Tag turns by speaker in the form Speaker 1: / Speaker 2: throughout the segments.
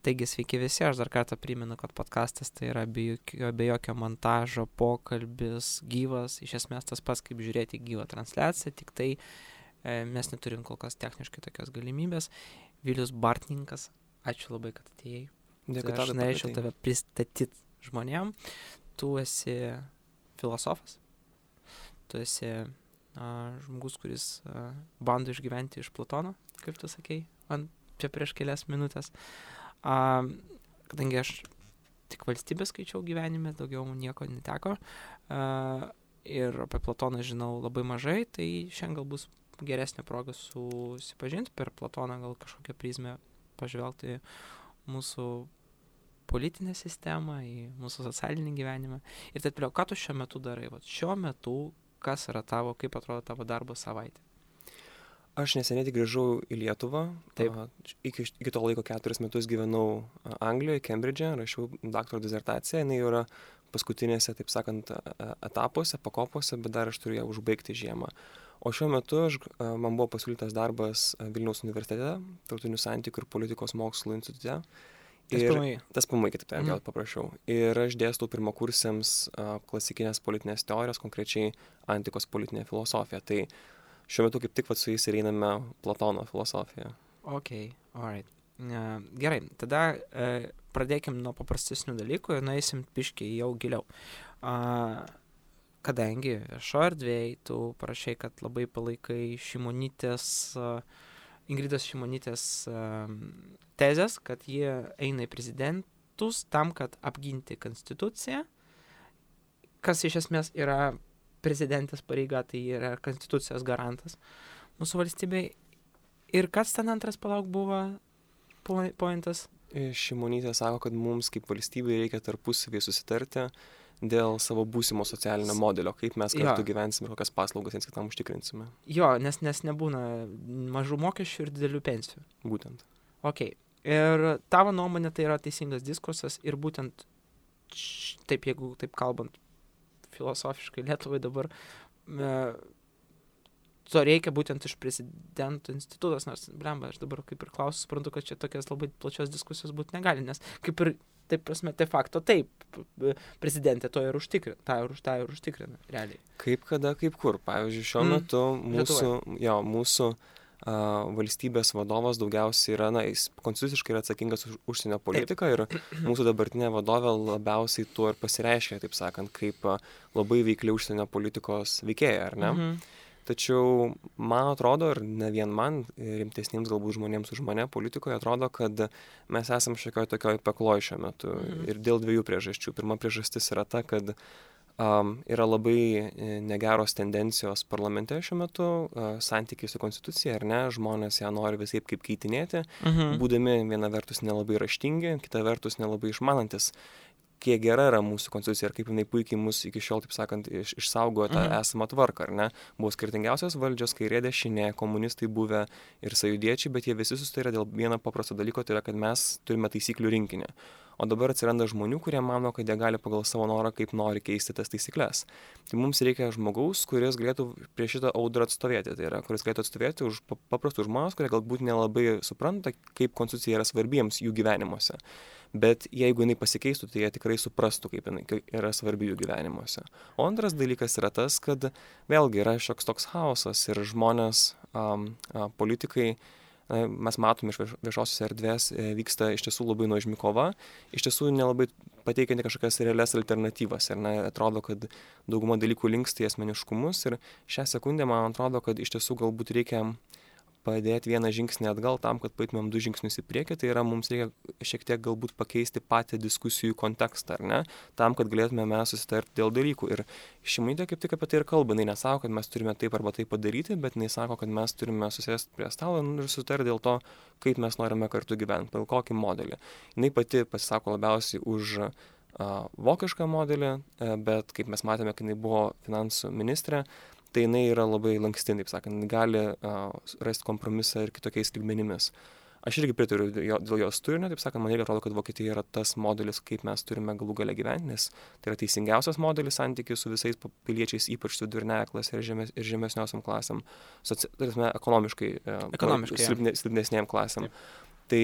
Speaker 1: Taigi sveiki visi, aš dar kartą primenu, kad podcastas tai yra be jokio montažo, pokalbis, gyvas, iš esmės tas pats kaip žiūrėti gyvą transliaciją, tik tai mes neturim kol kas techniškai tokios galimybės. Vilius Bartninkas, ačiū labai, kad atėjai.
Speaker 2: Dėkui,
Speaker 1: aš norėčiau tave pristatyti žmonėm. Tu esi filosofas, tu esi žmogus, kuris bando išgyventi iš Platono, kaip tu sakei, čia prieš kelias minutės. Kadangi aš tik valstybę skaičiau gyvenime, daugiau nieko neteko ir apie Platoną žinau labai mažai, tai šiandien gal bus geresnė proga susipažinti per Platoną, gal kažkokią prizmę pažvelgti mūsų politinę sistemą, į mūsų socialinį gyvenimą. Ir taip toliau, ką tu šiuo metu darai? Vat šiuo metu, kas yra tavo, kaip atrodo tavo darbo savaitė?
Speaker 2: Aš neseniai tik grįžau į Lietuvą.
Speaker 1: Taip.
Speaker 2: Iki to laiko 4 metus gyvenau Anglijoje, Kembridže, rašiau daktaro disertaciją. Jinai yra paskutinėse, taip sakant, etapuose, pakopose, bet dar aš turiu ją užbaigti žiemą. O šiuo metu man buvo pasiūlytas darbas Vilniaus universitete, Tarptautinių santykių ir politikos mokslų institute. Tas PMI, kitaip tariant, paprašiau. Ir aš dėstau pirmakursiams klasikinės politinės teorijos, konkrečiai antikos politinė filosofija. Tai šiuo metu kaip tik su jais ir einame Platono filosofiją.
Speaker 1: Ok, alright. Gerai, tada pradėkim nuo paprastesnių dalykų ir nueisim piškiai jau giliau. Kadangi viešo erdvėj tu parašai, kad labai palaikai Ingridos Šimonytės tezės, kad jie eina į prezidentus tam, kad apginti konstituciją, kas iš esmės yra prezidentės pareiga, tai yra konstitucijos garantas mūsų valstybei. Ir kas ten antras buvo pointas?
Speaker 2: Šimonytė sako, kad mums kaip valstybei reikia tarpusavį susitarti dėl savo būsimo socialinio modelio, kaip mes kartu gyvensime ir kokias paslaugas viens kitam užtikrinsime.
Speaker 1: Jo, nes nebūna mažų mokesčių ir didelių pensijų.
Speaker 2: Būtent.
Speaker 1: Ok. Ir tavo nuomonė tai yra teisingas diskursas ir būtent taip, jeigu taip kalbant filosofiškai Lietuvai dabar, to reikia būtent iš prezidento institutos, nors, blemba, aš dabar kaip ir klausiu, suprantu, kad čia tokias labai plačios diskusijos būti negali, nes kaip ir, taip prasme, de facto taip, prezidentė to ir užtikrina, tą ir užtikrina, realiai.
Speaker 2: Kaip kada, kaip kur. Pavyzdžiui, šiuo metu mūsų valstybės vadovas daugiausiai yra, jis konstituciškai yra atsakingas už užsienio politiką ir mūsų dabartinė vadovė labiausiai tuo ir pasireiškia, taip sakant, kaip labai veikli užsienio politikos veikėja, ar ne? Tačiau man atrodo, ir ne vien man, rimtesniems galbūt žmonėms už mane politikoje, atrodo, kad mes esam šiokioj tokioj pekloj šiuo metu ir dėl 2 priežasčių. Pirma priežastis yra ta, kad yra labai negeros tendencijos parlamente šiuo metu, santykiai su konstitucija, ar ne, žmonės ją nori visaip kaip keitinėti, būdami viena vertus nelabai raštingi, kita vertus nelabai išmanantis, kiek gera yra mūsų konstitucija ir kaip jinai puikiai mus iki šiol, taip sakant, išsaugojo tą esamą tvarką, ar ne? Buvo skirtingiausios valdžios, kairė, dešinė, komunistai buvę ir sąjūdiečiai, bet jie visi susitarė dėl vieno paprasto dalyko, tai yra, kad mes turime taisyklių rinkinį. O dabar atsiranda žmonių, kurie mano, kad jie gali pagal savo norą, kaip nori keisti tas taisyklės. Tai mums reikia žmogaus, kuris galėtų prieš šitą audrą atstovėti. Tai yra, kuris galėtų atstovėti už paprastus žmonės, kurie galbūt nelabai supranta, kaip konstitucija yra svarbiems jų gyvenimuose. Bet jeigu jinai pasikeistų, tai jie tikrai suprastų, kaip jinai yra svarbi jų gyvenimuose. O antras dalykas yra tas, kad vėlgi yra šioks toks chaosas ir žmonės, politikai, mes matome iš viešosios erdvės, vyksta iš tiesų labai nuožmi kova, iš tiesų nelabai pateikianti kažkokias realias alternatyvas. Ir atrodo, kad dauguma dalykų linksta į asmeniškumus ir šią sekundę man atrodo, kad iš tiesų galbūt reikia padėti vieną žingsnį atgal tam, kad paėtumėm 2 žingsnius į priekį, tai yra mums reikia šiek tiek galbūt pakeisti patį diskusijų kontekstą, ar ne, tam, kad galėtume mes susitarti dėl dalykų. Ir Šimonytė kaip tik apie tai ir kalba, jinai nesako, kad mes turime taip arba taip padaryti, bet jinai sako, kad mes turime susėsti prie stalo ir susitarti dėl to, kaip mes norime kartu gyventi, pagal kokį modelį. Jinai pati pasisako labiausiai už vokišką modelį, bet kaip mes matėme, kai jinai buvo finansų ministrė, tai jinai yra labai lanksti, taip sakant, gali rasti kompromisą ir kitokiais lygmenimis. Aš irgi pritariu dėl jos turinio, taip sakant, man irgi atrodo, kad Vokietija yra tas modelis, kaip mes turime galų gale gyventi, nes tai yra teisingiausias modelis santykių su visais piliečiais, ypač vidurinėje klasė ir žemesniosiam klasėm, ekonomiškai silpnesnėm klasėm. Tai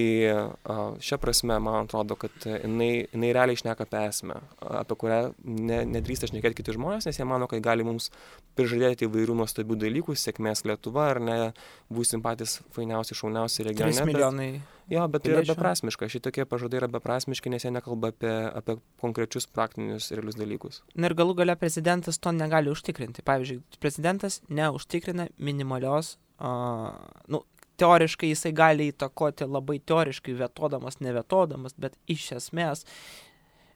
Speaker 2: šia prasme, man atrodo, kad jinai realiai šneka apie esmę, apie kurią nedrįsta šnekėti kiti žmonės, nes jie mano, kad gali mums prižadėti įvairių nuostabių dalykų, sėkmės Lietuva, ar ne, būsim patys fainiausi, šauniausi regione.
Speaker 1: 3 milijonai.
Speaker 2: Bet tai yra beprasmiška. Šitokie pažadai yra beprasmiški, nes jie nekalba apie konkrečius praktinius realius dalykus.
Speaker 1: Na ir galų gale prezidentas to negali užtikrinti. Pavyzdžiui, prezidentas neužtikrina minimalios, teoriškai jisai gali įtakoti labai teoriškai, vetodamas, nevetodamas, bet iš esmės,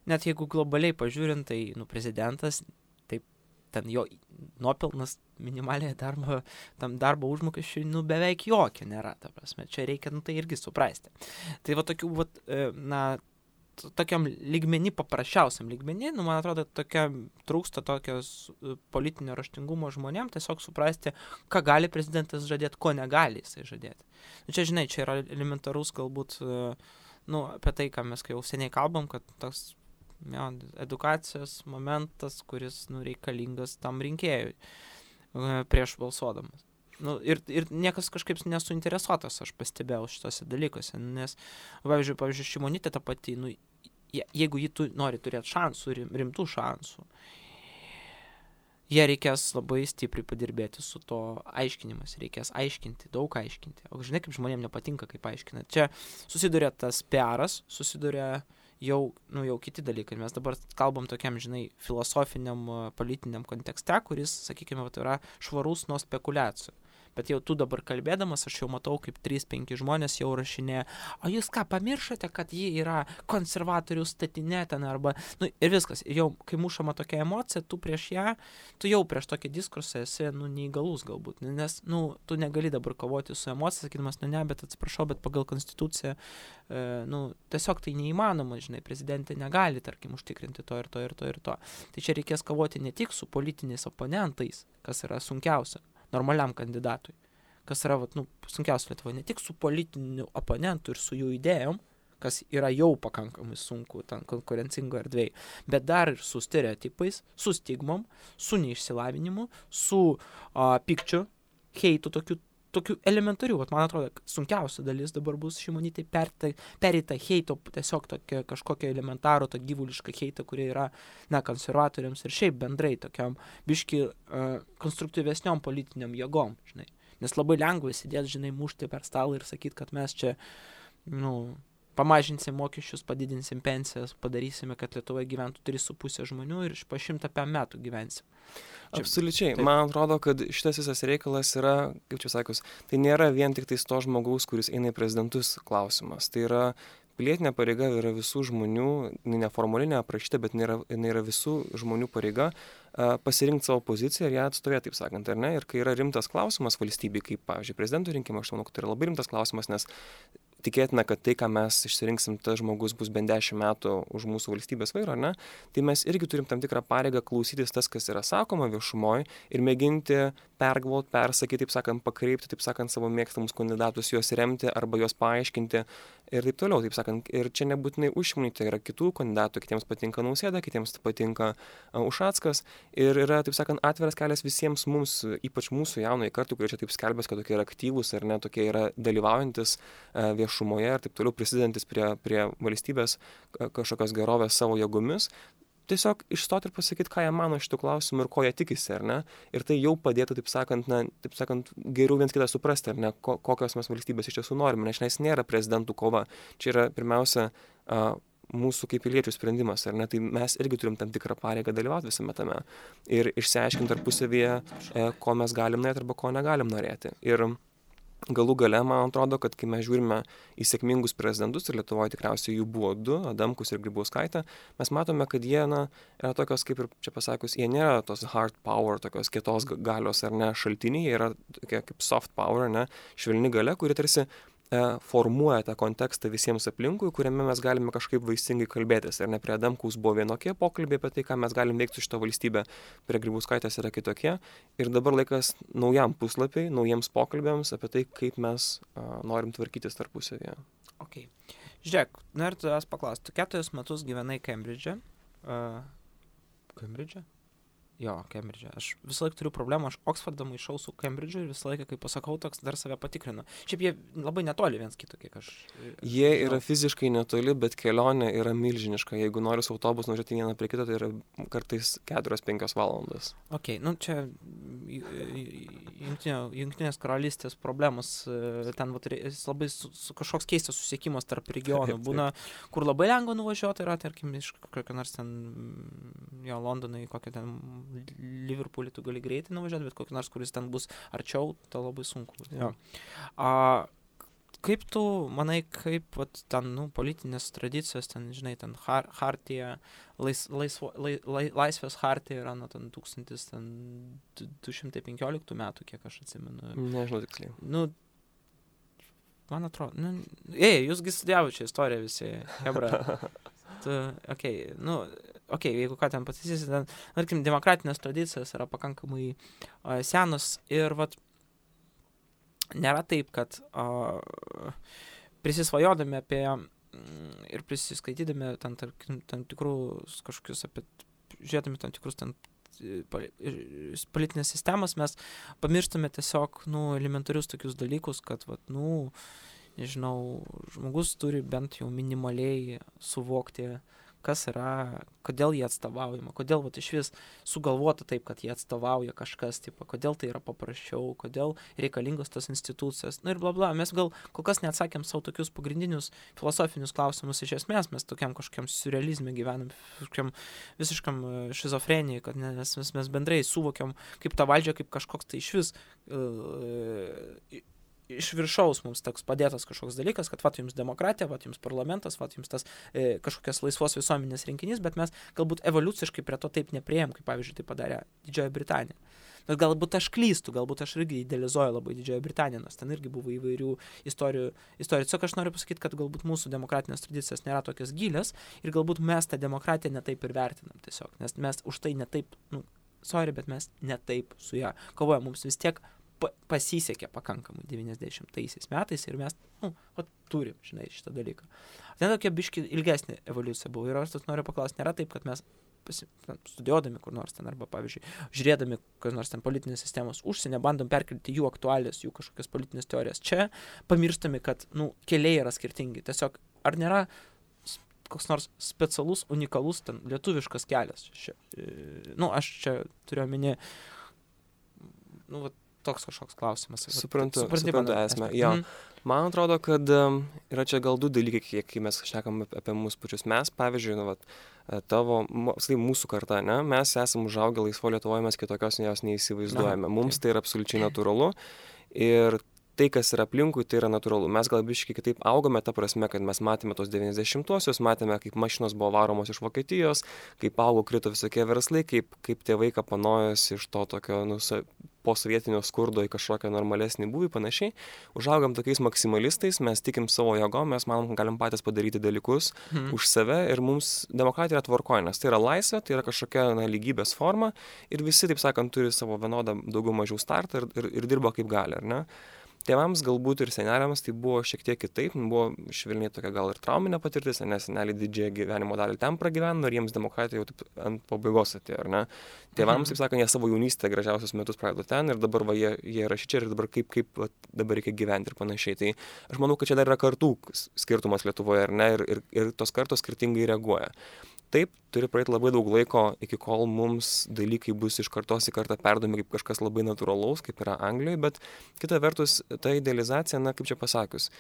Speaker 1: net jeigu globaliai pažiūrint, tai prezidentas, taip, ten jo nuopelnas minimaliai darbo užmokesčiui, beveik jokio nėra, ta prasme, čia reikia, tai irgi suprasti. Tai va tokių, tokiam lygmenį, paprasčiausiam lygmenį, man atrodo, trūksta tokios politinio raštingumo žmonėm, tiesiog suprasti, ką gali prezidentas žadėti, ko negali jisai žadėti. Čia, žinai, čia yra elementarus galbūt, apie tai, ką mes jau seniai kalbam, kad toks edukacijos momentas, kuris reikalingas tam rinkėjui prieš balsuodamas. Ir niekas kažkaip nesuinteresuotas, aš pastebėjau šitose dalykuose, nes, pavyzdžiui, Šimonytė ta pati, jeigu ji nori turėti šansų, rimtų šansų, jie reikės labai stipriai padirbėti su to aiškinimas, reikės aiškinti, daug aiškinti. O žinai, kaip žmonėms nepatinka, kaip aiškina. Čia susiduria tas PR-as, susiduria jau kiti dalykai. Mes dabar kalbam tokiam, žinai, filosofiniam, politiniam kontekste, kuris, sakykime, yra švarus nuo spekulacijų. Bet jau tu dabar kalbėdamas, aš jau matau, kaip 3-5 žmonės jau rašinėja, o jūs ką, pamiršote, kad ji yra konservatorių statinė ten arba, ir viskas. Ir jau, kai mušama tokia emocija, tu jau prieš tokį diskursą esi, neįgalus galbūt, nes, tu negali dabar kovoti su emocija, sakydamas, bet atsiprašau, bet pagal konstituciją, tiesiog tai neįmanoma, žinai, prezidentė negali, tarkim, užtikrinti to ir to ir to ir to. Tai čia reikės kovoti ne tik su politiniais oponentais, kas yra sunkiausia, normaliam kandidatui, kas yra sunkiausia Lietuvoje, ne tik su politiniu oponentu ir su jų idėjom, kas yra jau pakankamai sunku ten konkurencingo erdvėje, bet dar ir su stereotipais, su stigmom, su neišsilavinimu, su pykčiu, heitu, tokių elementarių. Man atrodo, sunkiausia dalis dabar bus Šimonytei pereita heito, tiesiog tokia kažkokia elementarų, to gyvuliška heita, kurie yra, konservatoriams ir šiaip bendrai tokiam biški konstruktyvesniom politiniam jėgom, žinai. Nes labai lengva sėdėti, žinai, mušti per stalą ir sakyti, kad mes čia, pamažinsim mokesčius, padidinsim pensijas, padarysime, kad Lietuvoje gyventų 3,5 žmonių ir po 105 metų gyvensim.
Speaker 2: Absoliučiai. Taip. Man atrodo, kad šitas visas reikalas yra, kaip čia sakius, tai nėra vien tik tais to žmogaus, kuris eina į prezidentus klausimas. Tai yra pilietinė pareiga, yra visų žmonių, neformaliai neaprašyta, bet jinai yra visų žmonių pareiga pasirinkti savo poziciją ir ją atstovėti, taip sakant, ar ne? Ir kai yra rimtas klausimas valstybei, kaip, pavyzdžiui, prezidento rinkimai, aš manau, kad tai yra labai rimtas klausimas, nes tikėtina, kad tai, ką mes išsirinksim, tas žmogus bus bent 10 metų už mūsų valstybės vairo, ar ne? Tai mes irgi turim tam tikrą pareigą klausytis tas, kas yra sakoma viešumoje ir mėginti pergalvoti, persakyti, taip sakant, pakreipti, taip sakant, savo mėgstamus kandidatus, juos remti arba juos paaiškinti ir taip toliau, taip sakant. Ir čia nebūtinai už Šimonytę, yra kitų kandidatų, kitiems patinka Nausėda, kitiems patinka Ušackas ir yra, taip sakant, atviras kelias visiems mums, ypač mūsų jaunai kartai, kurie čia taip skelbės, kad tokie yra aktyvūs ar ne, tokie yra dalyvaujantis viešumoje ir taip toliau prisidedantis prie valstybės kažkokios gerovės savo jėgomis. Tiesiog išstoti ir pasakyti, ką jie mano šitų klausimų ir ko jie tikisi, ar ne? Ir tai jau padėtų, taip sakant, geriau viens kitą suprasti, ar ne, kokios mes valstybės iš tiesų norime, nes nėra prezidentų kova. Čia yra pirmiausia mūsų kaip piliečių sprendimas, ar ne? Tai mes irgi turim tam tikrą pareigą dalyvauti visame tame ir išsiaiškinti tarpusavyje, ko mes galim norėti arba ko negalim norėti. Ir galų gale, man atrodo, kad kai mes žiūrime į sėkmingus prezidentus, ir Lietuvoje tikriausiai jų buvo 2, Adamkus ir Grybauskaitė, mes matome, kad jie, yra tokios, kaip ir čia pasakius, jie nėra tos hard power, tokios kietos galios ar ne šaltiniai, jie yra tokie kaip soft power, ne, švelni galia, kuri tarsi formuoja tą kontekstą visiems aplinkui, kuriame mes galime kažkaip vaisingai kalbėtis. Ir ne prie Adamkaus buvo vienokie pokalbiai apie tai, ką mes galim veikti su šitą valstybę, prie Grybauskaitės yra kitokie. Ir dabar laikas naujam puslapiai, naujiems pokalbėms apie tai, kaip mes norim tvarkytis tarpusavyje.
Speaker 1: Ok. Žiūrėk, noriu tavęs paklausti. Tu 4 metus gyvenai Kembridže. Kembridže? Jo, Kembridže. Aš visą laiką turiu problemą, aš Oksfordą maišau su Kembridžu ir visą laiką, kai pasakau, toks dar save patikrinu. Šiaip jie labai netoli viens kito, kiek aš...
Speaker 2: Jie yra fiziškai netoli, bet kelionė yra milžiniška. Jeigu nori su autobusu nuvažiuoti vieną prie kito, tai yra kartais 4-5 valandas.
Speaker 1: Ok, nu čia Jungtinės karalystės problemos, ten labai kažkoks keistas susiekimas tarp regionų. Būna, kur labai lengva nuvažiuoti, yra, tarkim, iš kokio nors ten, jo, Londonai, kokio ten Liverpoolį tu gali greitai nuvažiuoti, bet kokį nors, kuris ten bus arčiau, tai labai sunku. Jo. Kaip tu manai, kaip ten, politinės tradicijos, ten, žinai, ten hartija, laisvės hartija yra, ten 1215 metų, kiek aš atsimenu.
Speaker 2: Nežinau tiksliai.
Speaker 1: Man atrodo, jūsgi studijavo čia istoriją visi, hebra. Jeigu ką ten pataisysi, ten, tarkim, demokratinės tradicijos yra pakankamai senos ir nėra taip, kad prisisvajodami apie ir prisiskaitydami tam tikrus kažkokius žiūrėdami tam tikrus ten politinės sistemas, mes pamirštame tiesiog, elementarius tokius dalykus, kad, nežinau, žmogus turi bent jau minimaliai suvokti, kas yra, kodėl jie atstovaujama, kodėl iš vis sugalvota taip, kad jie atstovauja kažkas, kodėl tai yra paprasčiau, kodėl reikalingos tos institucijos, ir bla. Mes gal kol kas neatsakėm savo tokius pagrindinius filosofinius klausimus iš esmės, mes tokiam kažkokiam surrealizme gyvenam, visiškam šizofrenijai, kad mes bendrai suvokiam kaip tą valdžią, kaip kažkoks tai iš vis iš viršaus mums toks padėtas kažkoks dalykas, kad jums demokratija, jums parlamentas, jums tas kažkokias laisvos visuomenės rinkinys, bet mes galbūt evoliuciškai prie to taip nepriėjom, kaip pavyzdžiui tai padarė Didžioji Britanija. Bet galbūt aš klystu, galbūt aš irgi idealizuoju labai Didžioji Britanija, nes ten irgi buvo įvairių istorijų. Tiesiog aš noriu pasakyti, kad galbūt mūsų demokratinės tradicijos nėra tokios gilios ir galbūt mes tą demokratiją netaip ir vertinam tiesiog, nes mes už tai netaip, bet mes netaip su ją kovojam, mums vis tiek pasisekė pakankamai 90-aisiais metais ir mes, turim, žinai, šitą dalyką. Ten tokia biški ilgesnė evoliucija buvo ir aš noriu paklausti, nėra taip, kad mes studijuodami kur nors ten arba, pavyzdžiui, žiūrėdami kokios nors ten politinės sistemos užsienio, bandom perkelti jų aktualijas, jų kažkokias politinės teorijas. Čia pamirštami, kad, keliai yra skirtingi. Tiesiog, ar nėra koks nors specialus, unikalus ten lietuviškas kelias? Aš čia turiu omeny, toks kažkoks klausimas.
Speaker 2: Suprantu esmę. Jo. Man atrodo, kad yra čia gal du dalykai, kai mes šnekam apie mūsų pačius. Mes, pavyzdžiui, mūsų karta, ne? Mes esame užaugę laisvo Lietuvoje, mes kitokios jos neįsivaizduojame. Mums tai yra absoliučiai natūralu ir tai, kas yra aplinkui, tai yra natūralu. Mes gal biškai kitaip augome, ta prasme, kad mes matėme tos 90-uosius, matėme, kaip mašinos buvo varomos iš Vokietijos, kaip augo, krito visokie verslai, kaip tėvai kapanojosi iš to tokio posovietinio skurdo į kažkokią normalesnį būvį, panašiai. Užaugam tokiais maksimalistais, mes tikim savo jėgom, mes manom, kad galim patys padaryti dalykus už save ir mums demokratija yra tvarkoje, nes tai yra laisvė, tai yra kažkokia lygybės forma ir visi, taip sakant, turi savo vienodą daugiau mažiau startą ir dirba kaip gali, ar ne? Tėvams galbūt ir seneliams tai buvo šiek tiek kitaip, buvo švelniai tokia gal ir trauminė patirtis, nes seneliai didžiąją gyvenimo dalį ten pragyveno ir jiems demokratija jau taip ant pabaigos atėjo, ar ne? Tėvams, taip sakant, jie savo jaunystę gražiausius metus praleido ten ir dabar jie yra šičia ir dabar kaip dabar reikia gyventi ir panašiai. Tai aš manau, kad čia dar yra kartų skirtumas Lietuvoje, ar ne? Ir tos kartos skirtingai reaguoja. Taip, turi praeiti labai daug laiko, iki kol mums dalykai bus iš kartos į kartą perdomi kaip kažkas labai natūralaus, kaip yra Anglijoje, bet kita vertus, ta idealizacija, kaip čia pasakius,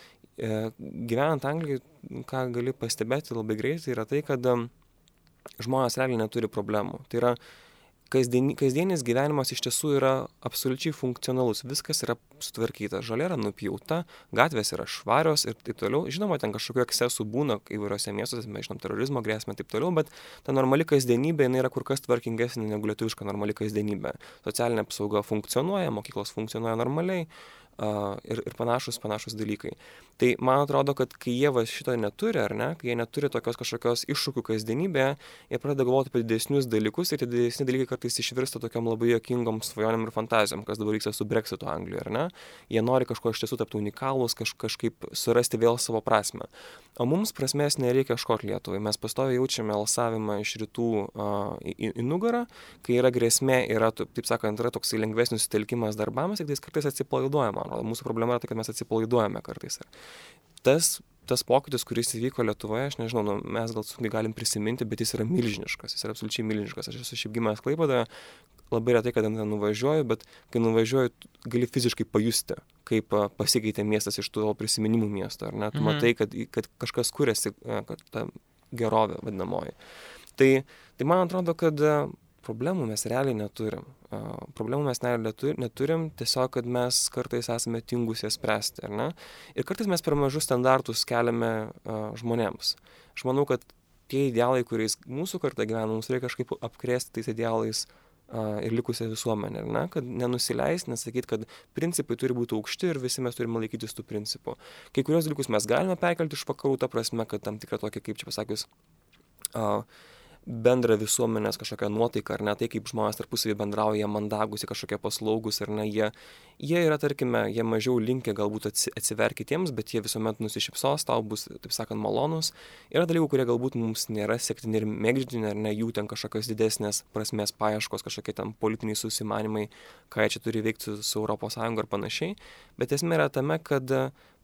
Speaker 2: gyvenant Anglijoje, ką gali pastebėti labai greitai, yra tai, kad žmonės realiai neturi problemų. Tai yra, kasdienis gyvenimas iš tiesų yra absoliučiai funkcionalus, viskas yra sutvarkyta, žolė yra nupjauta, gatvės yra švarios ir taip toliau. Žinoma, ten kažkokių ekscesų būna įvairiose miestuose, mes žinom terorizmo grėsmę ir taip toliau, bet ta normali kasdienybė yra kur kas tvarkingesnė negu lietuviška normali kasdienybė. Socialinė apsauga funkcionuoja, mokyklos funkcionuoja normaliai, ir panašus dalykai. Tai man atrodo, kad kai jie šito neturi, ar ne, kai jie neturi tokios kažkokios iššūkių kasdienybėje, jie pradeda galvoti apie didesnius dalykus ir tie didesni dalykai kartais išvirsta tokiam labai juokingom svajonėm ir fantazijom, kas dabar vyksta su Brexitu Anglijoje, ar ne? Jie nori kažko iš tiesų tapti unikalūs, kažkaip surasti vėl savo prasmę. O mums prasmės nereikia ieškoti Lietuvai. Mes pastoviai jaučiame alsavimą iš rytų į nugarą, kai yra grėsmė, taip sakant, yra toks lengvesnis sutelkimas darbams, tik tais kartais atsipalaiduojama. Mūsų problema yra tai, kad mes atsipalaiduojame kartais. Tas pokytis, kuris įvyko Lietuvoje, aš nežinau, mes gal sunkiai galim prisiminti, bet jis yra milžiniškas, jis yra absoliučiai milžiniškas. Aš esu šiaip gimęs Klaipėdoje, labai retai, kada ten nuvažiuoju, bet kai nuvažiuoju, gali fiziškai pajusti, kaip pasikeitė miestas iš tų prisiminimų miesto, ar ne? Tu matai, kad kažkas kuriasi, kad ta gerovė vadinamoji. Tai man atrodo, kad problemų mes realiai neturim. Problemų mes neturim, tiesiog, kad mes kartais esame tingus jas spręsti, ar ne? Ir kartais mes per mažus standartus keliame žmonėms. Aš manau, kad tie idealai, kuriais mūsų karta gyvena, mums reikia kažkaip apkrėsti tais idealais ir likusią visuomenę, ar ne? Kad nenusileis, nesakyti, kad principai turi būti aukšti ir visi mes turime laikytis tų principų. Kai kurios dalykus mes galime perkelti iš vakarų, ta prasme, kad tam tikra tokia, kaip čia pasakius, bendrą visuomenės kažkokią nuotaiką, ar ne, tai kaip žmonės tarpusavį bendrauja, mandagūs, kažkokie paslaugus, ar ne, jie yra, tarkime, jie mažiau linkę galbūt atsiverti kitiems, bet jie visuomet nusišypsos, tau bus, taip sakant, malonus. Yra dalykų, kurie galbūt mums nėra sektini ir mėgdžini, ar ne, jų ten kažkokios didesnės prasmės paieškos, kažkokie ten politiniai susimanimai, ką jie čia turi veikti su ES ir panašiai. Bet esmė yra tame, kad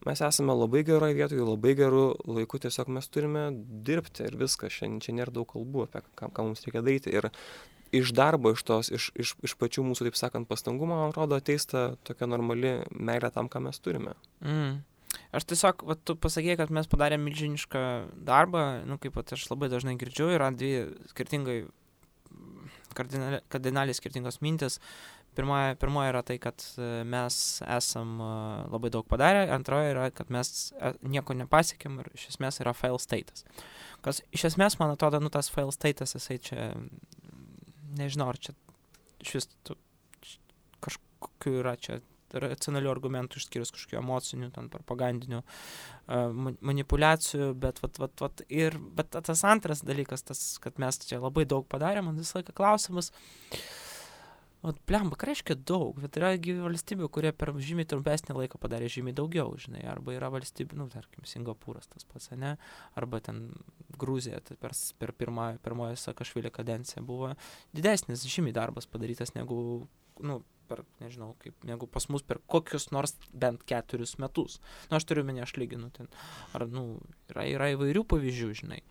Speaker 2: mes esame labai geroje vietoje, labai gerų laikų, tiesiog mes turime dirbti ir viskas. Čia nėra daug kalbų apie ką mums reikia daryti. Ir iš darbo, iš pačių mūsų, taip sakant, pastangų, man atrodo, ateis ta tokia normali meilė tam, ką mes turime.
Speaker 1: Aš tiesiog, tu pasakėjai, kad mes padarėm milžinišką darbą, kaip aš labai dažnai girdžiu, yra dvi skirtingai, kardinaliai skirtingos mintis. Pirmoji yra tai, kad mes esam labai daug padarę, antroji yra, kad mes nieko nepasiekėm ir iš esmės yra fail status. Kas iš esmės, man atrodo, tas fail status, jisai čia, nežinau, ar čia šis kažkokiu yra čia racionalių argumentų išskyrus kažkokių emocinių, ten propagandinių manipulacijų, bet tas antras dalykas, kad mes čia labai daug padarėm, man visą laiką klausimas, blemba, ką reiškia daug, bet yra valstybių, kurie per žymiai trumpesnį laiką padarė žymiai daugiau, žinai, arba yra valstybių, tarkim, Singapūras tas pats, ne, arba ten Gruzija, tai per pirmoją Sakašvilio kadenciją buvo didesnis žymiai darbas padarytas negu, negu pas mus per kokius nors bent 4 metus. Aš turiu menį, aš lyginu ten, ar, yra įvairių pavyzdžių, žinai.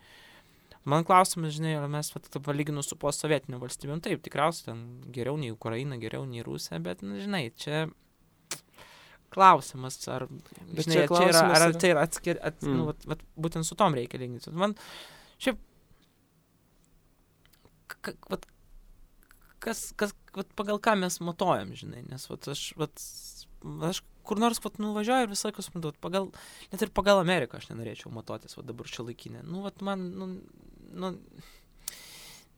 Speaker 1: Man klausimas, žinai, ar mes palyginus su postsovietiniu valstybėm, taip, tikriausiai ten geriau nei Ukraina, geriau nei Rusija, bet, žinai, čia klausimas, ar, žinai, čia yra būtent su tom reikia lyginti. Man, šiaip, pagal ką mes matuojam, žinai, nes, aš kur nors nuvažiuoju ir visą laiką suprantu, net ir pagal Ameriką aš nenorėčiau matuotis, dabar šiuolaikinė.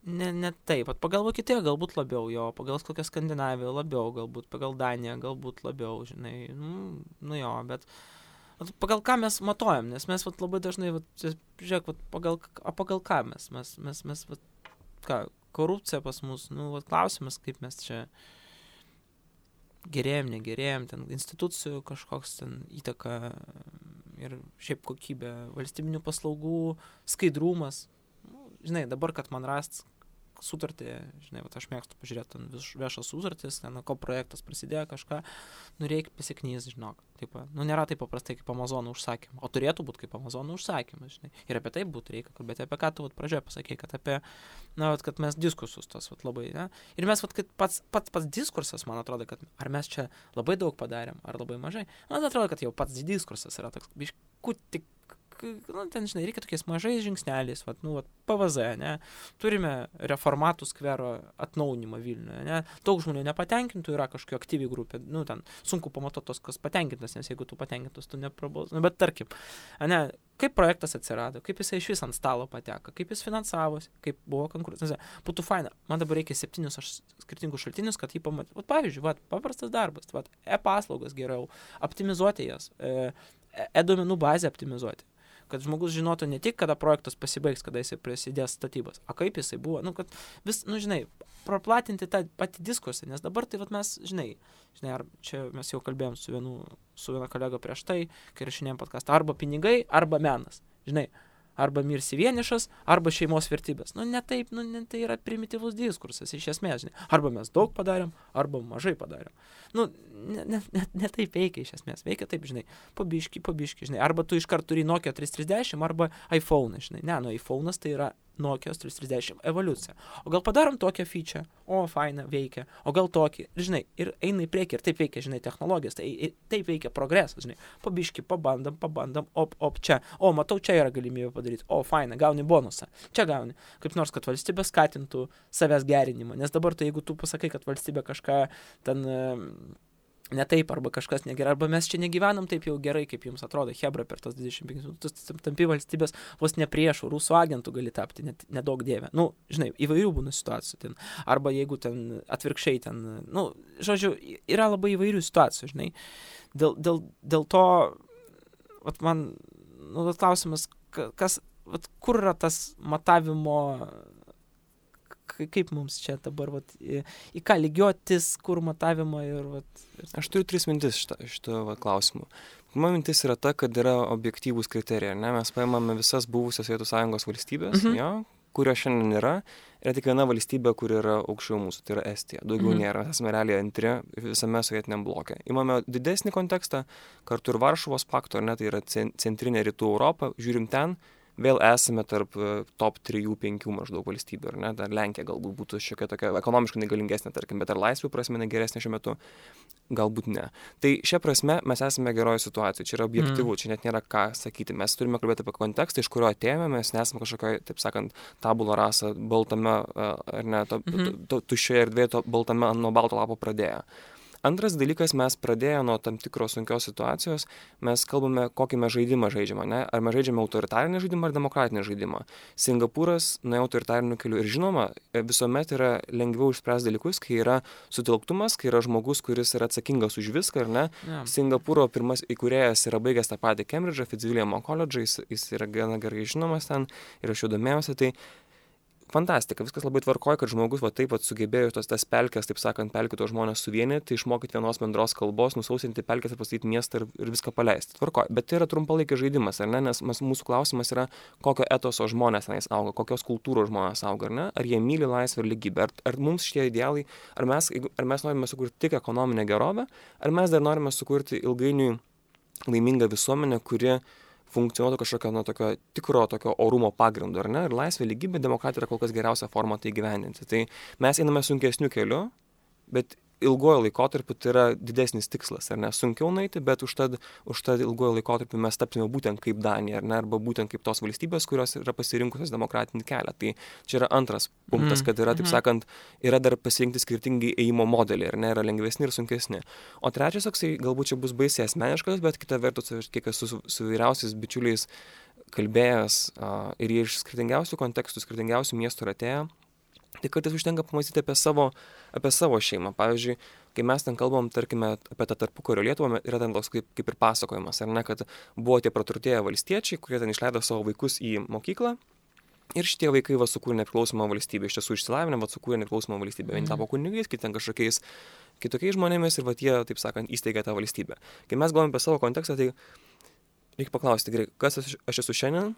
Speaker 1: Ne taip, pagal Vokietiją galbūt labiau, pagal kokią Skandinaviją labiau, galbūt pagal Daniją galbūt labiau, žinai, bet pagal ką mes matuojam, nes mes labai dažnai, žiūrėk, pagal ką mes korupcija pas mus, klausimas, kaip mes čia gerėjom, negerėjom, ten institucijų kažkoks ten įtaka ir šiaip kokybė, valstybinių paslaugų, skaidrumas. Žinai, dabar, kad man rast sutartį, žinai, aš mėgstu pažiūrėti ten viešas sutartis, ten ko projektas prasidėjo kažką, reikia pasiknys, žinok. Taip, nėra taip paprastai kaip Amazono užsakymą, o turėtų būti kaip Amazono užsakymas, žinai. Ir apie tai reikia kalbėti, apie ką tu pradžioje pasakei, kad apie, kad mes diskursus tos labai, ne? Ir mes, kad pats diskursas, man atrodo, kad ar mes čia labai daug padarėm, ar labai mažai, man atrodo, kad jau pats diskursas yra toks, biškutį ten, žinai, reikia tokiais mažais žingsneliais, PVZ, ne, turime reformatų skvero atnaujinimą Vilniuje, ne, daug žmonių nepatenkintų, yra kažkokia aktyvi grupė, ten sunku pamatuoti tos, kas patenkintas, nes jeigu tu patenkintas, tu neprabaus, bet tarkim, ne, kaip projektas atsirado, kaip jisai iš vis ant stalo pateko, kaip jis finansavosi, kaip buvo konkursas. Būtų faina. Man dabar reikia 7 skirtingus šaltinius, kad jį pamatytų. Pavyzdžiui, paprastas darbas, e-paslaugas geriau, optimizuoti jas, e-duomenų bazę optimizuoti. Kad žmogus žinotų ne tik, kada projektas pasibaigs, kada jisai prasidės statybos, o kaip jisai buvo, kad vis, žinai, praplatinti tą patį diskursą, nes dabar tai mes, žinai, ar čia mes jau kalbėjom su viena kolega prieš tai, kai rašinėjom podcastą, arba pinigai, arba menas, žinai, arba mirsi vienišas, arba šeimos vertybės. Ne taip, tai yra primityvus diskursas, iš esmės, žinai, arba mes daug padarėm, arba mažai padarėm. Ne taip veikia iš esmės, veikia taip, žinai, pabiški, žinai, arba tu iškart turi Nokia 330, arba iPhone, žinai, iPhone'as tai yra Nokia 330 evoliucija. O gal padarom tokią feature, faina, veikia, o gal tokį, žinai, ir eina į priekį, ir taip veikia, žinai, technologijas, taip veikia progresas, žinai, pabiški, pabandam, čia, matau, čia yra galimybė padaryti, faina, gauni bonusą, čia gauni, kaip nors, kad valstybė skatintų savęs gerinimą, nes dabar tai jeigu tu pasakai, kad valstybė kažką ten ne taip, arba kažkas negerai, arba mes čia negyvenam taip jau gerai, kaip jums atrodo, hebra per tos 25 minutus, tampi valstybės vos ne priešų, rusų agentų gali tapti, nedaug dievė. Žinai, įvairių būna situacijų ten, arba jeigu ten atvirkščiai ten, žodžiu, yra labai įvairių situacijų, žinai. Dėl to, man, klausimas, kur yra tas matavimo, kaip mums čia dabar, į ką lygiotis, kur matavimo ir.
Speaker 2: Aš turiu 3 mintis šito klausimu. Pirma mintis yra ta, kad yra objektyvūs kriterijai, ne? Mes paimame visas buvusias Sovietų Sąjungos valstybės, kurio šiandien yra tik viena valstybė, kur yra aukščiau mūsų, tai yra Estija. Daugiau nėra, esame realiai antri visame sovietiniam bloke. Imame didesnį kontekstą, kartu ir Varšuvos pakto, tai yra centrinė rytų Europa, žiūrim ten, vėl esame tarp top 3-5 maždaug valstybių, ar ne? Dar Lenkija galbūt būtų šiokia tokia ekonomiškai negalingesnė, tarkim, bet ar laisvių prasme geresnė šiuo metu? Galbūt ne. Tai šia prasme mes esame geroje situacijoje, čia yra objektyvu, čia net nėra ką sakyti. Mes turime kalbėti apie kontekstą, iš kurio atėjome, mes nesame kažkokio, taip sakant, tabula rasa baltame, ar ne, tuščioje erdvėje, baltame nuo balto lapo pradėję. Antras dalykas, mes pradėję nuo tam tikros sunkios situacijos, mes kalbame, kokį mes žaidimą žaidžiame, ne? Ar mes žaidžiame autoritarinį žaidimą ar demokratinį žaidimą. Singapūras nuėjo autoritariniu keliu ir žinoma, visuomet yra lengviau išspręsti dalykus, kai yra sutelktumas, kai yra žmogus, kuris yra atsakingas už viską, ar ne? Yeah. Singapūro pirmas įkūrėjas yra baigęs tą patį Cambridge'ą, Fitzwilliamo koledžą, jis yra gana gerai žinomas ten ir aš jau domėjausi, tai fantastika, viskas labai tvarkoja, kad žmogus taip sugebėjo tas pelkes, taip sakant, pelkito žmonės suvienyti, išmokyti vienos bendros kalbos, nusausinti pelkes ir pastatyti miestą ir viską paleisti. Tvarkoja, bet tai yra trumpalaikis žaidimas, ar ne? Nes mūsų klausimas yra, kokio etoso žmonės tenais auga, kokios kultūros žmonės auga, ar ne? Ar jie myli laisvę ir lygybę, ar mums šitie idealai, ar mes norime sukurti tik ekonominę gerovę, ar mes dar norime sukurti ilgainiui laimingą visuomenę, kuri funkcionuotų kažkokio tokio tikro tokio orumo pagrindu, ar ne? Ir laisvė, lygybė, demokratija yra kol kas geriausia forma tai gyvendinti. Tai mes einame sunkesniu keliu, bet ilgojo laikotarpiu tai yra didesnis tikslas, ar ne? Sunkiau nueiti, bet užtad ilgojo laikotarpiu mes tapsime būtent kaip Danija, ar ne? Arba būtent kaip tos valstybės, kurios yra pasirinkusios demokratinį kelią. Tai čia yra antras punktas, kad yra, taip sakant, yra dar pasirinkti skirtingi ėjimo modeliai, ar ne? Yra lengvesni ir sunkesni. O trečias, toksai, galbūt čia bus baisiai asmeniškas, bet kita vertus, kiek esu su vyriausiais bičiuliais kalbėjęs ir jie iš skirtingiausių kontekstų, skirtingiausių miestų yra atėję, tai kartais užtenka pamastyti apie savo šeimą. Pavyzdžiui, kai mes ten kalbam, tarkime, apie tą tarpukario Lietuvą, yra ten toks kaip ir pasakojimas, ar ne, kad buvo tie praturtėję valstiečiai, kurie ten išleido savo vaikus į mokyklą ir šitie vaikai sukūrė nepriklausomą valstybę, iš tiesų išsilavinę, sukūrė nepriklausomą valstybę. Vieni tapo kunigais, kiti ten kažkokiais kitokiais žmonėmis ir jie, taip sakant, įsteigė tą valstybę. Kai mes galvojame apie savo kontekstą, tai reikia paklausti, gerai, kas aš esu šiandien,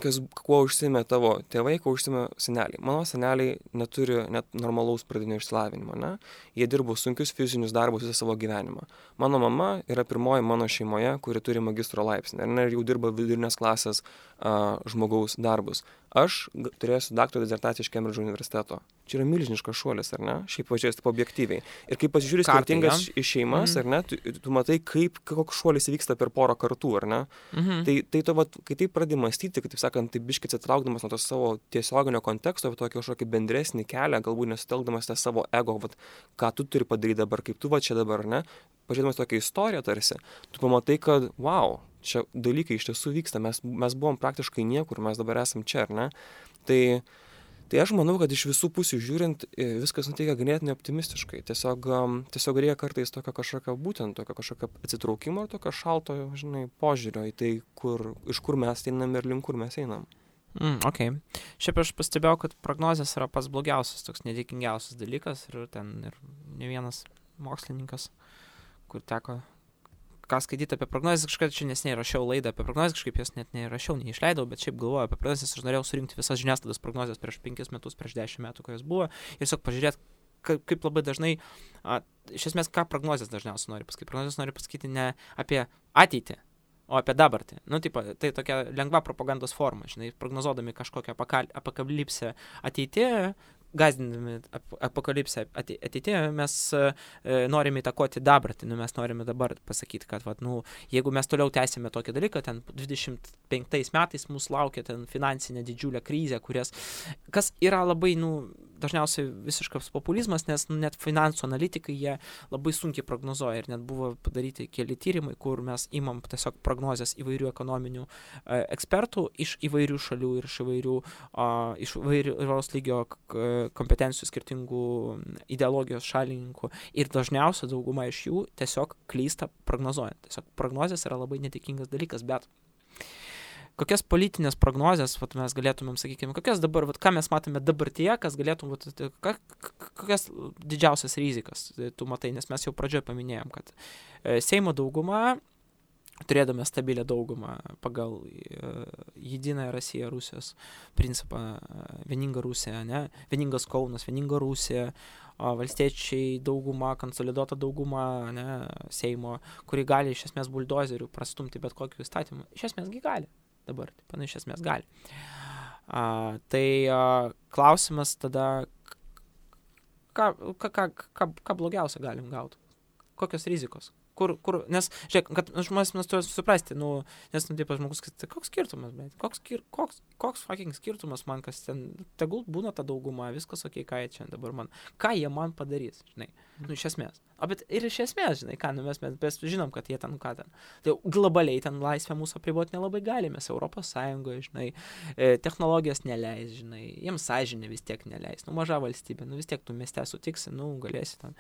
Speaker 2: kuo užsiėmė tavo tėvai, kuo užsiėmė seneliai. Mano seneliai neturi net normalaus pradinio išsilavinimo, ne? Jie dirbo sunkius fizinius darbus visą savo gyvenimą. Mano mama yra pirmoji mano šeimoje, kuri turi magistro laipsnį, ir jau dirba vidurinės klasės žmogaus darbus. Aš turėsiu daktaro dizertaciją iš Kembridžo universiteto. Čia yra milžiniškas šuolis, ar ne? Šiaip pažiūrės taip objektyviai. Ir kai pasižiūrės skirtingas šeimas, ar ne, tu matai, koks šuolis vyksta per porą kartų, ar ne? Tai tu, kai taip pradedi mąstyti, kaip taip sakant, taip biškį atsitraukdamas nuo to savo tiesioginio konteksto, tokį kažkokį bendresnį kelią, galbūt nesutelkdamas tą savo ego, ką tu turi padaryti dabar, kaip tu čia dabar, ne? Pažiūrėdamas tokią istoriją tarsi, tu pamatai, kad, wow, čia dalykai iš tiesų vyksta, mes buvom praktiškai niekur, mes dabar esam čia, ar ne? Tai aš manau, kad iš visų pusių žiūrint, viskas nuteikia ganėtinai optimistiškai. Tiesiog reikia kartais tokio kažkokio atsitraukimo ir tokio šalto, požiūrio į tai, iš kur mes einam ir link kur mes einam.
Speaker 1: Ok. Šiaip aš pastebėjau, kad prognozės yra pats blogiausias, toks nedėkingiausias dalykas ir ne vienas mokslininkas, kur teko ką skaityti apie prognozes, kažkada čia neseniai rašiau laidą apie prognozes, kažkaip jas net neišleidau, bet šiaip galvoju apie prognozes, aš norėjau surinkti visas žiniasklaidos prognozes prieš 5 metus, prieš 10 metų, kai jos buvo, ir tiesiog pažiūrėti, kaip labai dažnai, iš esmės, ką prognozes dažniausiai nori pasakyti. Prognozes nori pasakyti ne apie ateitį, o apie dabartį. Tai tokia lengva propagandos forma, prognozuodami kažkokią apokalipsę ateityje, gazdindami apokalipsę ateityje, mes norime įtakoti dabartį, mes norime dabar pasakyti, kad jeigu mes toliau tęsime tokį dalyką, ten 25 metais mūsų laukia ten finansinė didžiulė krizė, kas yra labai, dažniausiai visiškas populizmas, nes net finansų analitikai jie labai sunkiai prognozuoja ir net buvo padaryti keli tyrimai, kur mes imam tiesiog prognozes įvairių ekonominių ekspertų iš įvairių šalių ir iš įvairiaus lygio kompetencijų skirtingų ideologijos šalininkų ir dažniausiai dauguma iš jų tiesiog klysta prognozuojant. Tiesiog prognozės yra labai netikėtas dalykas, bet kokias politinės prognozės mes galėtumėm, sakykime, kokias dabar, ką mes matome dabartyje, kas galėtum, kokias didžiausias rizikas tu matai, nes mes jau pradžioje paminėjom, kad Seimo dauguma, turėdami stabilią daugumą pagal Jediną Rusiją, Rusijos principą, vieninga Rusija, ne? Vieningas Kaunas, vieninga Rusija, valstiečiai dauguma, konsoliduota dauguma, ne? Seimo, kuri gali iš esmės buldozerių prastumti bet kokį įstatymą. Iš esmės gali dabar, iš esmės gali. Tai klausimas tada, ką blogiausia galim gauti? Kokios rizikos? Nes, žiūrėk, kad žmonės mes turime suprasti, nes, taip, žmogus, koks skirtumas, bet koks fucking skirtumas man, kas ten, tegul būna ta dauguma, viskas ok, ką jie čia dabar ką jie man padarys, iš esmės. Bet ir iš esmės, mes žinom, kad jie ten, tai globaliai ten laisvę mūsų apriboti nelabai galime, mes Europos Sąjungoje, technologijos neleis, jiems sąžinė vis tiek neleis, maža valstybė, vis tiek tu mieste sutiksi, galėsi ten,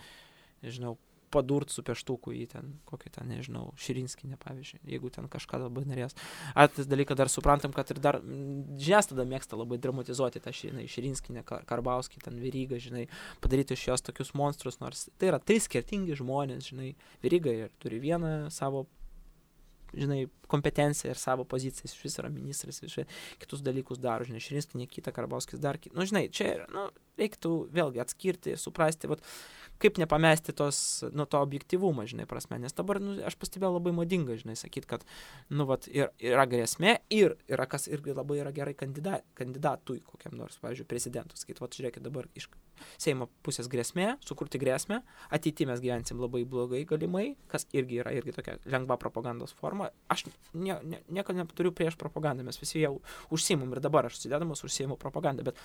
Speaker 1: padurt su pieštuku į ten, kokį ten, Širinskienę, pavyzdžiui, jeigu ten kažką labai norės. Tas dalykas dar suprantam, kad ir dar žiniasklaida mėgsta labai dramatizuoti tą Širinskienę, Karbauskį, ten Verygą, padaryti iš jos tokius monstrus, nors tai yra 3 skirtingi žmonės, Veryga ir turi vieną savo, kompetenciją ir savo poziciją, iš vis yra ministras, kitus dalykus daro, Širinskienė kitą, Karbauskis dar kitą. Čia reiktų vėlgi atskirti, suprasti, kaip nepamesti to objektyvumą, prasme, nes dabar, aš pastebėjau labai madinga, sakyti, kad, yra grėsmė ir yra, kas irgi labai yra gerai kandidatui kokiam nors, pavyzdžiui, prezidentų, sakyti, žiūrėkit, dabar iš Seimo pusės grėsmė, sukurti grėsmę, ateityje mes gyvensim labai blogai galimai, kas irgi yra tokia lengva propagandos forma. Aš nieko neturiu prieš propagandą, mes visi jau užsiimam ir dabar aš sudėdamas užsiimu propagandą, bet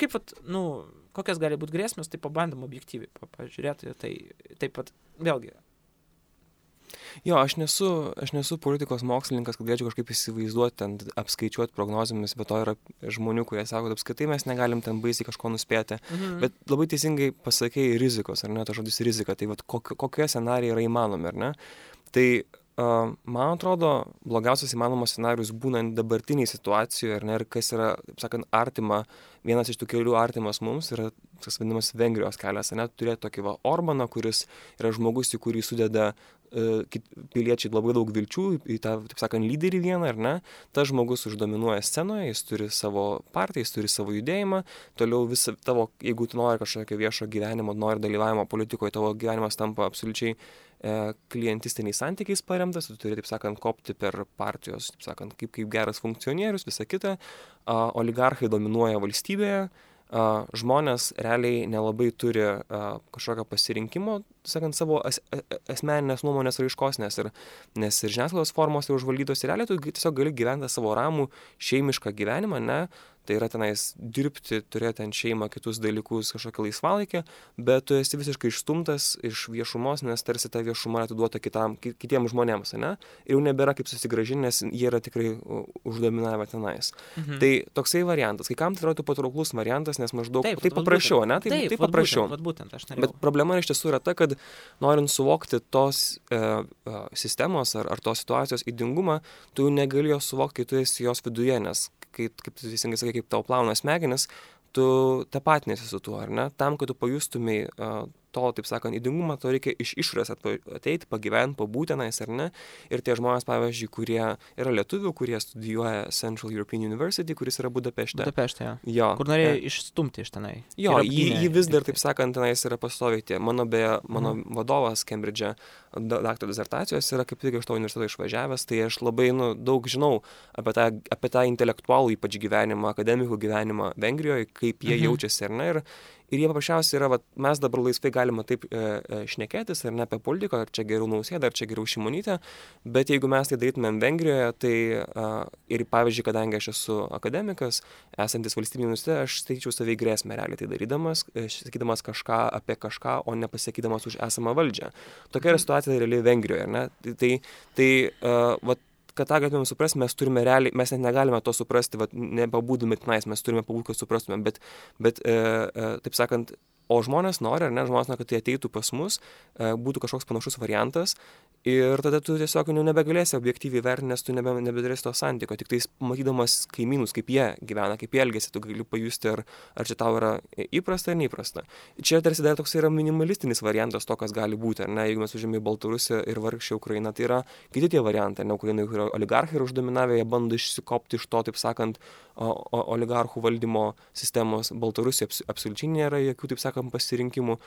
Speaker 1: kaip, kokias gali būti grėsmės, tai pabandom objektyviai pažiūrėti, tai taip pat vėlgi.
Speaker 2: Jo, aš nesu politikos mokslininkas, kad galėčiau kažkaip įsivaizduoti, ten apskaičiuoti prognozėmis, bet to yra žmonių, kurie sako, kad apskaitai mes negalim ten baisiai kažko nuspėti, bet labai teisingai pasakei rizikos, ar ne, tas žodis rizika, tai kokie scenarijai yra įmanomi, ar ne? Tai man atrodo, blogiausias įmanomas scenarius būnant dabartiniai situacijoje, ar ne, ir kas yra, taip sakant, artima, vienas iš tų kelių artimas mums yra tas vadinamas Vengrijos kelias, ar ne, turėti tokį Orbaną, kuris yra žmogus, į kurį sudeda piliečiai labai daug vilčių į tą, taip sakant, lyderį vieną, ar ne, tas žmogus uždominuoja scenoje, jis turi savo partiją, jis turi savo judėjimą, toliau visą tavo, jeigu tu nori kažkokio viešo gyvenimo, nori dalyvavimo politikoje, tavo gyvenimas tampa absoliučiai klientistiniais santykiais paremtas, tu turi, taip sakant, kopti per partijos, taip sakant, kaip geras funkcionierius, visa kita, oligarchai dominuoja valstybėje, žmonės realiai nelabai turi kažkokio pasirinkimo, sakant, savo asmeninės nuomonės raiškos, nes ir žiniasklaidos formos yra užvaldytos ir realiai tu tiesiog gali gyventi savo ramų šeimišką gyvenimą, ne, tai yra tenais dirbti, turėti ant šeimą, kitus dalykus, kažkokį laisvalaikį, bet tu esi visiškai išstumtas iš viešumos, nes tarsi ta viešuma atiduota kitiems žmonėms, ne, ir jau nebėra kaip susigrąžinti, nes jie yra tikrai uždominavę tenais. Tai toksai variantas, kai kam tai yra patrauklus variantas, nes maždaug taip paprasčiau, ne, taip paprasčiau. Bet problema iš tiesų yra ta, kad norint suvokti tos sistemos ar tos situacijos ydingumą, tu negali jos suvokti, kai tu esi jos viduje, nes kaip tu teisingai sakai, kaip tau plauna smegenis, tu tapatinėsi su tuo, ar ne? Tam, kad tu pajustumai to, taip sakant, ydingumą, to reikia iš išorės ateiti, pagyventi, pabūti tenais, ar ne? Ir tie žmonės, pavyzdžiui, kurie yra lietuvių, kurie studijuoja Central European University, kuris yra Budapešte.
Speaker 1: Budapešte, jo. Kur norėjo išstumti iš tenai.
Speaker 2: Jo, jį vis dar, taip sakant, tenais yra pastoviai tie. Mano vadovas Cambridge'e daktaro disertacijos yra kaip tik iš to universiteto išvažiavęs, tai aš labai daug žinau apie tą intelektualų ypač gyvenimą, akademikų gyvenimą Vengrijoje, kaip jie jaučiasi, ar ne? Ir jie paprasčiausiai yra, mes dabar laisvai galime taip šnekėtis, ar ne, apie politiką, ar čia geriau Nausėda, ar čia geriau Šimonytė, bet jeigu mes tai darytumėm Vengrijoje, tai ir pavyzdžiui, kadangi aš esu akademikas, esantis valstybinį universitete, aš skaičiau savai grėsmę realiai tai darydamas, sakydamas kažką apie kažką, o nepasakydamas už esamą valdžią. Tokia yra situacija realiai Vengrijoje, ar ne? Tai kad tą galėtume suprasti, mes turime realiai, mes net negalime to suprasti, nepabūdami tenais, mes turime pabūti, kad suprastume, bet taip sakant, o žmonės nori, ar ne, žmonės nori, kad tai ateitų pas mus, būtų kažkoks panašus variantas ir tada tu tiesiog nebegalėsi objektyviai vertinti, nes tu nebedarėsi to santykio, tik tais matydamas kaimynus, kaip jie gyvena, kaip jie elgiasi, tu gali pajusti, ar čia tau yra įprasta ar neįprasta. Čia tarsi dar toks yra minimalistinis variantas to, kas gali būti, ar ne, jeigu mes užėmėme Baltarusiją ir vargšę Ukrainą, tai yra kiti tie variantai, ne, Ukrainai, kur oligarchai yra uždominavę, jie bando išsikopti iš to, taip sakant, oligarchų valdymo sistemos. Baltarusija absoliučiai nėra jokių, taip sakant, pasirinkimų.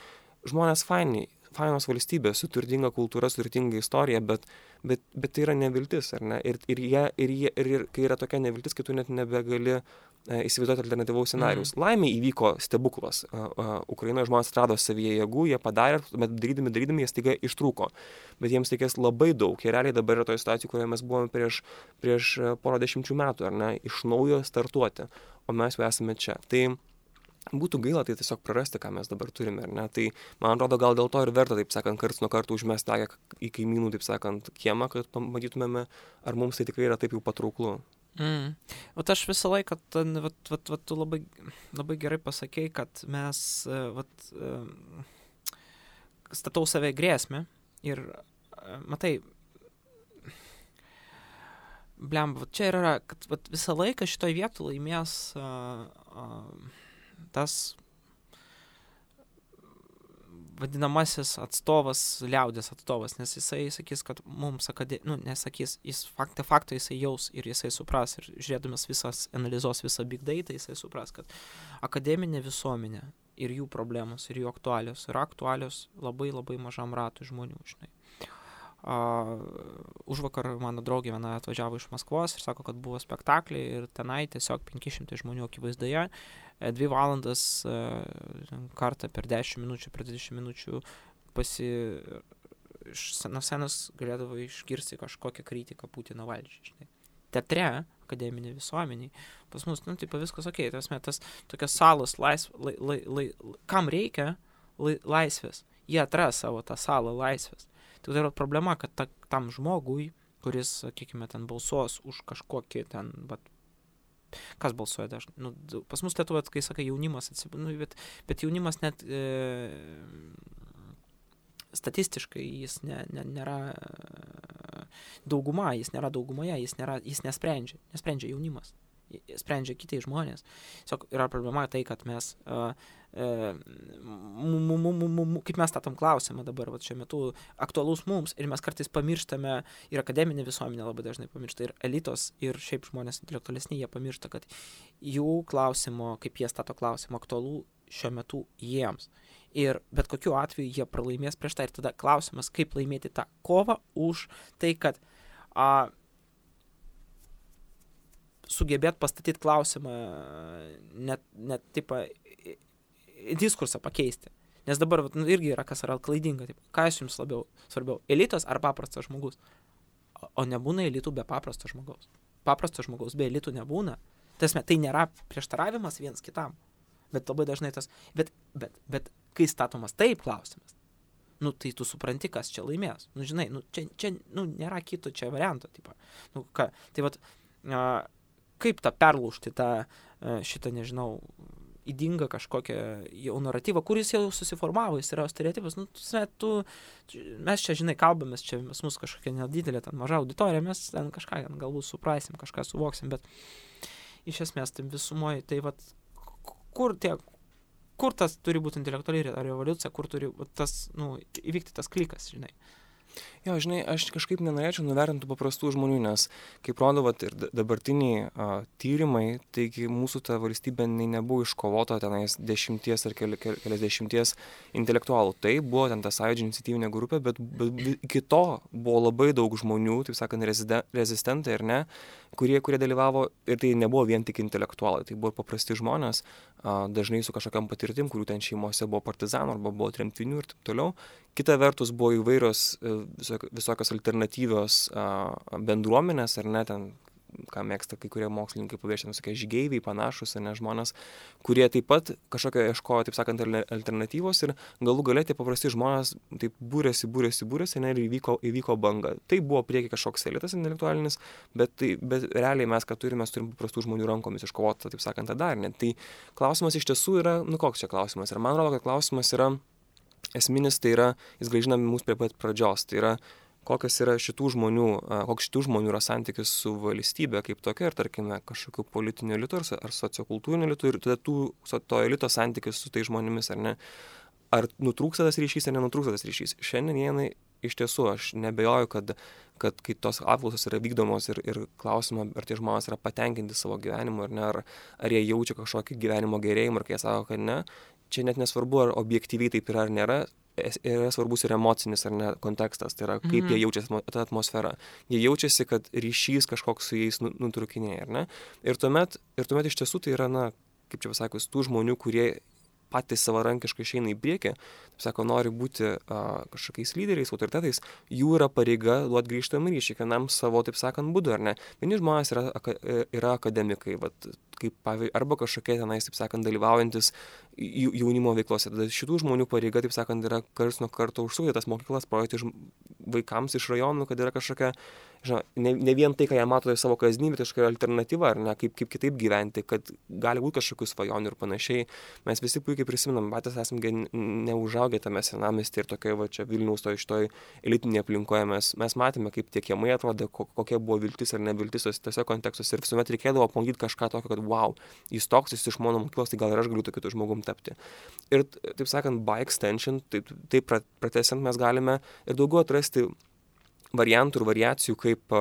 Speaker 2: Žmonės fainos valstybės, su turtinga kultūra, su turtinga istorija, bet tai yra neviltis, ar ne? Ir kai yra tokia neviltis, kai tu net nebegali įsivaizduoti alternatyvaus scenarijaus. Laimė įvyko stebuklas. Ukrainoje žmonės atrado savyje jėgų, jie padarė, bet darydami jie staiga ištrūko. Bet jiems reikės labai daug. Jie realiai dabar yra toje situacijoje, kurioje mes buvome prieš porą dešimčių metų, ar ne? Iš naujo startuoti. O mes jau esame čia. Tai būtų gaila tai tiesiog prarasti, ką mes dabar turime, ar ne? Tai, man atrodo, gal dėl to ir verta, taip sakant, karts nuo karto užmesti akį į kaimynų, taip sakant, kiemą, kad pamatytumėme, ar mums tai tikrai yra taip jau patrauklu.
Speaker 1: Vat aš visą laiką, tu labai gerai pasakei, kad mes, statau save grėsmę ir, matai, blemba, čia yra, kad visą laiką šitoj vietoj laimės tas vadinamasis atstovas, liaudės atstovas, nes jisai sakys, kad mums nesakys, jis fakto jisai jaus ir jisai supras, ir žiūrėdamas analizuos visą big data, jisai supras, kad akademinė visuomenė ir jų problemos, ir jų aktualios yra aktualios labai labai mažam ratui žmonių, žinai. Užvakar mano draugė viena atvažiavo iš Maskvos ir sako, kad buvo spektakliai ir tenai tiesiog 500 žmonių akivaizdoje 2 valandas kartą per 10 minučių, per 20 minučių nuo scenos galėdavo išgirsti kažkokią kritiką Putino valdžiai, žinai. Teatre, akademinė visuomeniai, pas mus, taip viskas okei, tas tokios salos kam reikia laisvės, jie atras savo tą salą laisvės. Tai yra problema, kad tam žmogui, kuris, sakykime, ten balsuos už kažkokį ten, kas balsuoja dažnai, pas mus Lietuvoje, kai sakai jaunimas, bet jaunimas net statistiškai jis nėra dauguma, jis nėra daugumoje, jis nesprendžia jaunimas, sprendžia kiti žmonės. Tiesiog yra problema tai, kad mes, kaip mes statom klausimą dabar, šiuo metu aktualus mums ir mes kartais pamirštame, ir akademinė visuomenė labai dažnai pamiršta, ir elitos, ir šiaip žmonės intelektualesni, jie pamiršta, kad jų klausimo, kaip jie stato klausimą, aktualu šiuo metu jiems. Ir bet kokiu atveju jie pralaimės prieš tai. Ir tada klausimas, kaip laimėti tą kovą už tai, kad sugebėt pastatyti klausimą, net taip, diskursą pakeisti. Nes dabar irgi yra, kas yra klaidinga. Taip, kas jums labiau svarbiau, elitas ar paprastas žmogus? O nebūna elitų be paprasto žmogaus. Paprasto žmogaus be elitų nebūna. Tai nėra prieštaravimas viens kitam. Bet labai dažnai tas, bet kai statomas taip klausimas, tai tu supranti, kas čia laimės. Žinai, čia nėra kito čia varianto. Kaip tą perlaužti šitą, nežinau, ydingą kažkokią jau naratyvą, kuris jau susiformavo, jis yra stereotipas. Mes čia, žinai, kalbamės, čia mūsų kažkokia nedidelė, maža auditorija, mes ten kažką galbūt suprasim, kažką suvoksim, bet iš esmės tai visumoje, tai kur tas turi būti intelektuali revoliucija, kur turi įvykti tas klikas, žinai.
Speaker 2: Jo, žinai, aš kažkaip nenorėčiau nuvertinti paprastų žmonių, nes, kaip rodo ir dabartiniai tyrimai, taigi mūsų ta valstybė nebuvo iškovota tenais 10 ar keliasdešimties intelektualų. Tai buvo ten ta Sąjūdžio iniciatyvinė grupė, bet iki to buvo labai daug žmonių, taip sakant, rezistentai ar ne, kurie dalyvavo, ir tai nebuvo vien tik intelektualai, tai buvo paprasti žmonės, dažnai su kažkokiam patirtim, kurių ten šeimose buvo partizanų arba buvo tremtinių ir taip toliau. Kita vertus buvo įvairios visokios alternatyvios bendruomenės, ar ne, ten, ką mėgsta kai kurie mokslininkai pabrėžti, visokie žygeiviai, panašus, ar ne, žmonės, kurie taip pat kažkokio ieškojo, taip sakant, alternatyvos ir galų gale tie paprasti žmonės taip būrėsi, ir įvyko banga. Tai buvo prieki kažkoks elitas intelektualinis, bet realiai mes, ką turime paprastų žmonių rankomis iškovoti, taip sakant, tą darinį. Tai klausimas iš tiesų yra, koks čia klausimas? Ir man rodo, kad klausimas yra esminis, tai yra, jis grąžina mus prie pat pradžios, tai yra, koks šitų žmonių yra santykis su valstybe kaip tokia ir, tarkime, kažkokiu politiniu elitu ar sociokultūriniu elitu ir tada to elito santykis su tai žmonėmis, ar ne. Ar nutrūksta tas ryšys, ar nenutrūksta tas ryšys. Šiandien iš tiesų aš nebejoju, kad kai tos apklausos yra vykdomos ir klausimą, ar tie žmonės yra patenkinti savo gyvenimu, ar ne, ar jie jaučia kažkokį gyvenimo gerėjimą, ar kai jie sako, kad ne, čia net nesvarbu, ar objektyviai taip yra ar nėra, yra svarbus ir emocinis ar ne kontekstas, tai yra kaip jie jaučiasi tą atmosferą. Jie jaučiasi, kad ryšys kažkoks su jais nutrūkinėja, ar ne? Ir tuomet iš tiesų tai yra, kaip čia pasakius, tų žmonių, kurie patys savarankiškai išeina į priekį, taip sako, nori būti kažkokiais lyderiais, autoritetais, jų yra pareiga duoti grįžtamą ryšį, kiekvienam savo, taip sakant, būdu, ar ne. Vieni žmonės yra akademikai, arba kažkokie tenais, taip sakant, dalyvaujantis jaunimo veiklose. Tada šitų žmonių pareiga, taip sakant, yra karts nuo karto užsukti tas mokyklas, parodyti vaikams iš rajonų, kad yra kažkokia, ne vien tai, ką jie mato savo kasdienybę, tai kažkokia alternatyva, ar ne, kaip kitaip gyventi, kad gali būti kažkokių svajonių ir panašiai. Mes visi puikiai prisimenam, patys esame neužaugę tame senamiestyje ir tokioje čia Vilniaus šitoj elitinėje aplinkoje. Mes matėme, kaip tie kiemai atrodė, kokia buvo viltis ar neviltis tose kontekstuose ir visuomet reikėdavo apmokyti kažką tokio, kad wow, jis toks, jis iš mano mokyklos, tai gal ir aš galiu tokiu žmogum tapti. Ir, taip sakant, by extension, taip pratęsiant mes galime ir daugiau atrasti variantų ir variacijų, kaip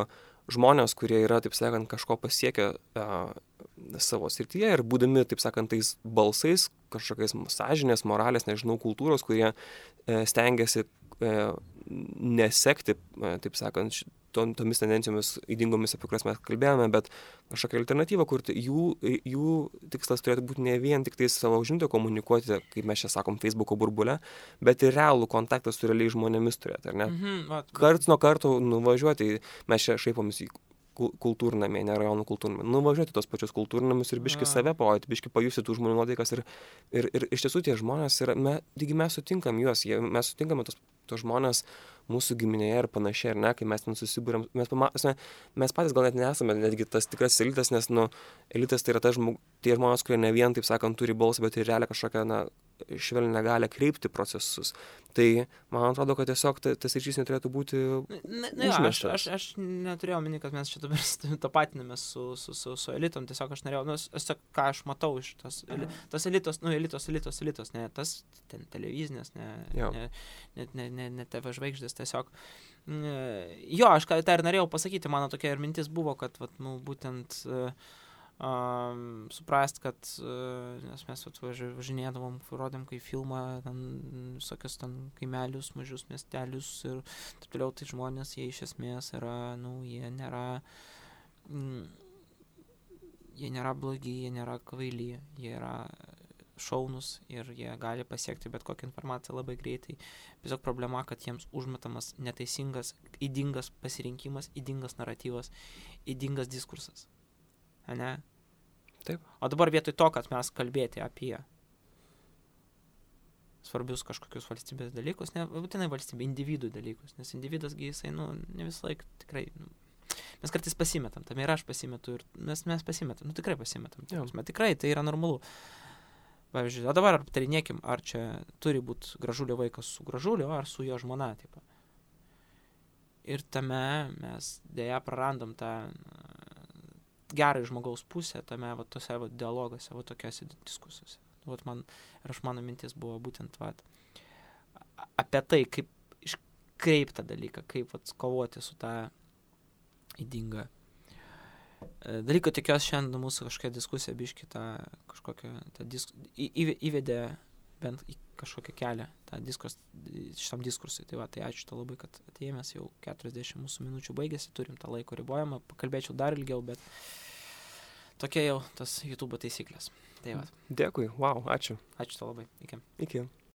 Speaker 2: žmonės, kurie yra, taip sakant, kažko pasiekę savo srityje ir būdami, taip sakant, tais balsais, kažkokiais sąžinės, moralės, nežinau, kultūros, kurie stengiasi nesekti, taip sakant, tomis tendencijomis ydingomis, apie kurias mes kalbėjome, bet kažkokią alternatyvą kurti. Jų tikslas turėtų būti ne vien tik tai savo žinutę komunikuoti, kaip mes čia sakom, Facebooko burbule, bet ir realų kontaktą su realiai žmonėmis turėti, ar ne? Karts nuo karto nuvažiuoti, mes čia šaipomės į kultūrnamį, ne rajonų kultūrnamį, nuvažiuoti tos pačius kultūrnamius ir biški save parodyti, biški pajusti tų žmonių nuotaikas ir iš tiesų tie žmonės yra, mes sutinkam juos, mes sutinkame tos žmonės mūsų giminėje ir panašiai, ar ne, kai mes ten susibūrėm, mes patys gal net nesame netgi tas tikras elitas, nes elitas tai yra tie žmonės, kurie ne vien, taip sakant, turi balsą, bet ir realią kažkokią švelnią galią kreipti procesus. Tai man atrodo, kad tiesiog tas ryšys neturėtų būti užmirštas.
Speaker 1: Aš neturėjau omeny, kad mes čia dabar tapatinamės su elitom, tiesiog aš norėjau, ką aš matau iš tas elitos, elitos, ne tas televizinės, ne TV žvaigždės, tiesiog. Jo, aš tą ir norėjau pasakyti, mano tokia ir mintis buvo, kad būtent suprast, kad nes mes važinėdavom, rodėm kai filmą, visokius kaimelius, mažius miestelius ir taip toliau, tai žmonės, jie iš esmės yra, jie nėra blogi, jie nėra kvaili, jie yra šaunus ir jie gali pasiekti bet kokią informaciją labai greitai. Tiesiog problema, kad jiems užmetamas neteisingas, ydingas pasirinkimas, ydingas naratyvas, ydingas diskursas. Ne?
Speaker 2: Taip.
Speaker 1: O dabar vietoj to, kad mes kalbėti apie svarbius kažkokius valstybės dalykus, ne būtinai valstybė, individų dalykus, nes individasgi jisai, ne visą laiką tikrai, mes kartais pasimetam, tam ir aš pasimetu, ir mes pasimetam, tikrai pasimetam, tikrai tai yra normalu. Pavyzdžiui, o dabar aptarinėkim, ar čia turi būti Gražulio vaikas su Gražuliu, ar su jo žmona, tipo. Ir tame mes dėja prarandam tą gerai žmogaus pusę tame tose dialoguose, tokiose diskusijose. Mano mintis buvo būtent apie tai, kaip iškreipti tą dalyką, kaip kovoti su tą ydingą dalyką. Tikiuosi šiandien mūsų kažkokia diskusija biški įvedė bent į kažkokią kelią šitam diskursui. Tai ačiū tau labai, kad atėjomės, jau 40 mūsų minučių baigėsi, turim tą laiko ribojimą, pakalbėčiau dar ilgiau, bet tokia jau tas YouTube taisyklės. Tai
Speaker 2: Dėkui, wow, ačiū.
Speaker 1: Ačiū tau labai, iki.
Speaker 2: Iki.